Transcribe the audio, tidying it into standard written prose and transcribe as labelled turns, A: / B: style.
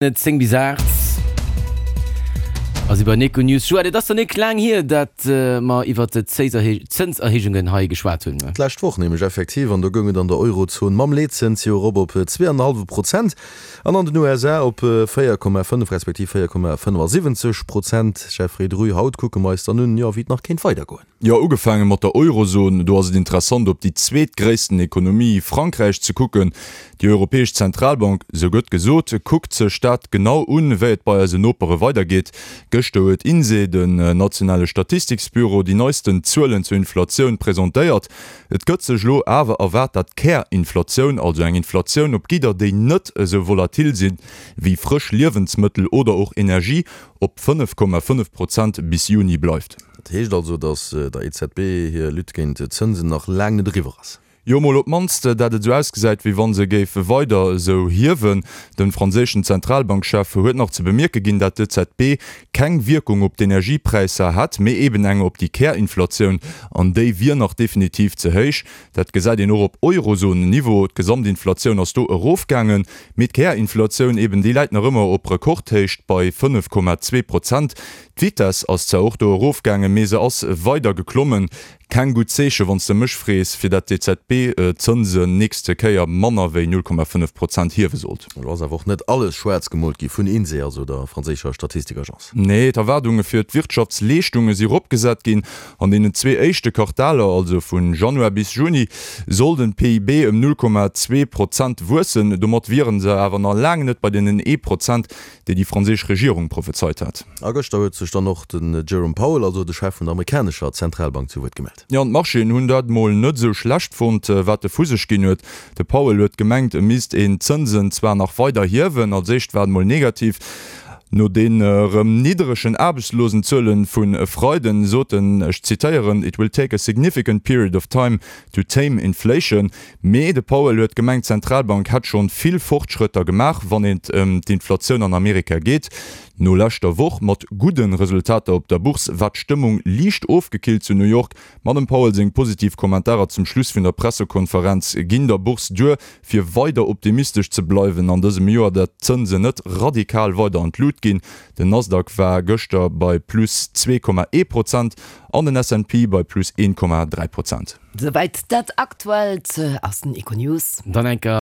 A: 10 bis 8 ass iwwer Econews. Joël, et ass der nik laang hier, dat mer iwwer d'Zënserhéijungen hei geschwat hunn.
B: D'lescht Woch nämlech effektiv, an do goung et an der Eurozon mam Leetzëns jo erop op 2,5 Prozent an an den USA op 4,5 respektiv 4,75 Prozent. Jeffrey Druy, haut kucke mer eis dann un, jo, wéi et nach kéint weidergoen.
C: Jo, ugefaange mat der Eurozon, do ass et interessant op déi zweetgréissten Ekonomie, Frankräich, ze kucken. Déi Europäesch Zentralbank, sou gëtt gesot, kuckt sech dat genau un, wéi et bei eisen Nopere weidergeet. Gëschter huet INSEE, den nationale Statistiksbüro, déi neisten Zuelen zur Inflatioun presentéiert. Et gëtt sech elo awer erwaart, dat d'Kärinflatioun, also eng Inflatioun op Gidder, déi net esou volatil sinn, wéi frësch Liewensmëttel oder och Energie, op 5,5 Prozent bis Juni bleift.
B: Dat heescht also, datt der EZB hir Lutte géint d'Zënsen nach laang net eriwwer ass.
C: Jo, mol op d'mannst, dat et esou ausgesäit, wéi wa se géif weider esou hiewen. De franséischen Zentralbankchef huet nach ze bemierke ginn, dat d'EZB keng Wierkung op d'Energiepräisser hätt, mee eben eng op déi Kärinflatioun, an déi wier nach definitiv ze héich. Dat gesäit een och op Eurozon-Niveau, D'Gesamtinflatioun ass do erofgaangen, mee d'Kärinflatioun eben, déi läit nach ëmmer op Rekordhéicht bei 5,2 Prozent. D'Vitess ass zwar och do erofgaangen, mee se ass weider geklommen. Keng gutt Zeeche wann s de mech frees, fir dat d'EZB d'Zënsen nächste Kéier manner wéi 0,5 Prozent hiewe sollt.
B: Elo ass awer och net alles schwaarz gemoolt gi vun INSEE, also der franséischer Statistikagence.
C: Nee, d'Erwaardunge fir d'Wirtschaftsleeschtunge si ropgesat ginn. An deenen zwee éischte Quartaler, also vu Januar bis Juni, soll den PIB ëm 0,2 Prozent wuessen. Domat wiere se awer nach laang net bei deenen ee Prozent, déi déi franséisch Regierung prophezeit hat.
B: A gëschter huet sech dann och den Jerome Powell, also de Chef vun der amerikanescher Zentralbank, zu Wuert gemellt.
C: Jo, an d'Marchéen hunn dat mol net esou schlecht fonnt, wat e vu sech ginn huet. De Powell huet gemengt, e misst een d'Zënsen zwar nach weider hiewen, als éischt war et mol negativ. No den erëm nidderegen Aarbechtslosenzuelen vun e Freiden sot en, ech zitéieren, It will take a significant period of time to tame inflation. Mee de Powell huet gemengt, d'Zentralbank hätt schonn vill Fortschrëtter gemaach, wann et ëm d'Inflatioun an Amerika geet. No leschter Woch mat gudde Resultater op der Bourse war d'Stëmmung liicht ofgekillt zu New York. Ma dem Powell seng positiv Kommentarer zum Schluss vun der Pressekonferenz ginn der Bourse duer, fir weider optimistesch ze bleiwen an dësem Joer, dat d'Zënsen net radikal weider an d'Lut ginn. Den Nasdaq war gëschter bei plus 2,1 Prozent an den S&P bei plus 1,3 Prozent.
D: Souwäit dat Aktuellt aus den Econews.
A: Dann enker.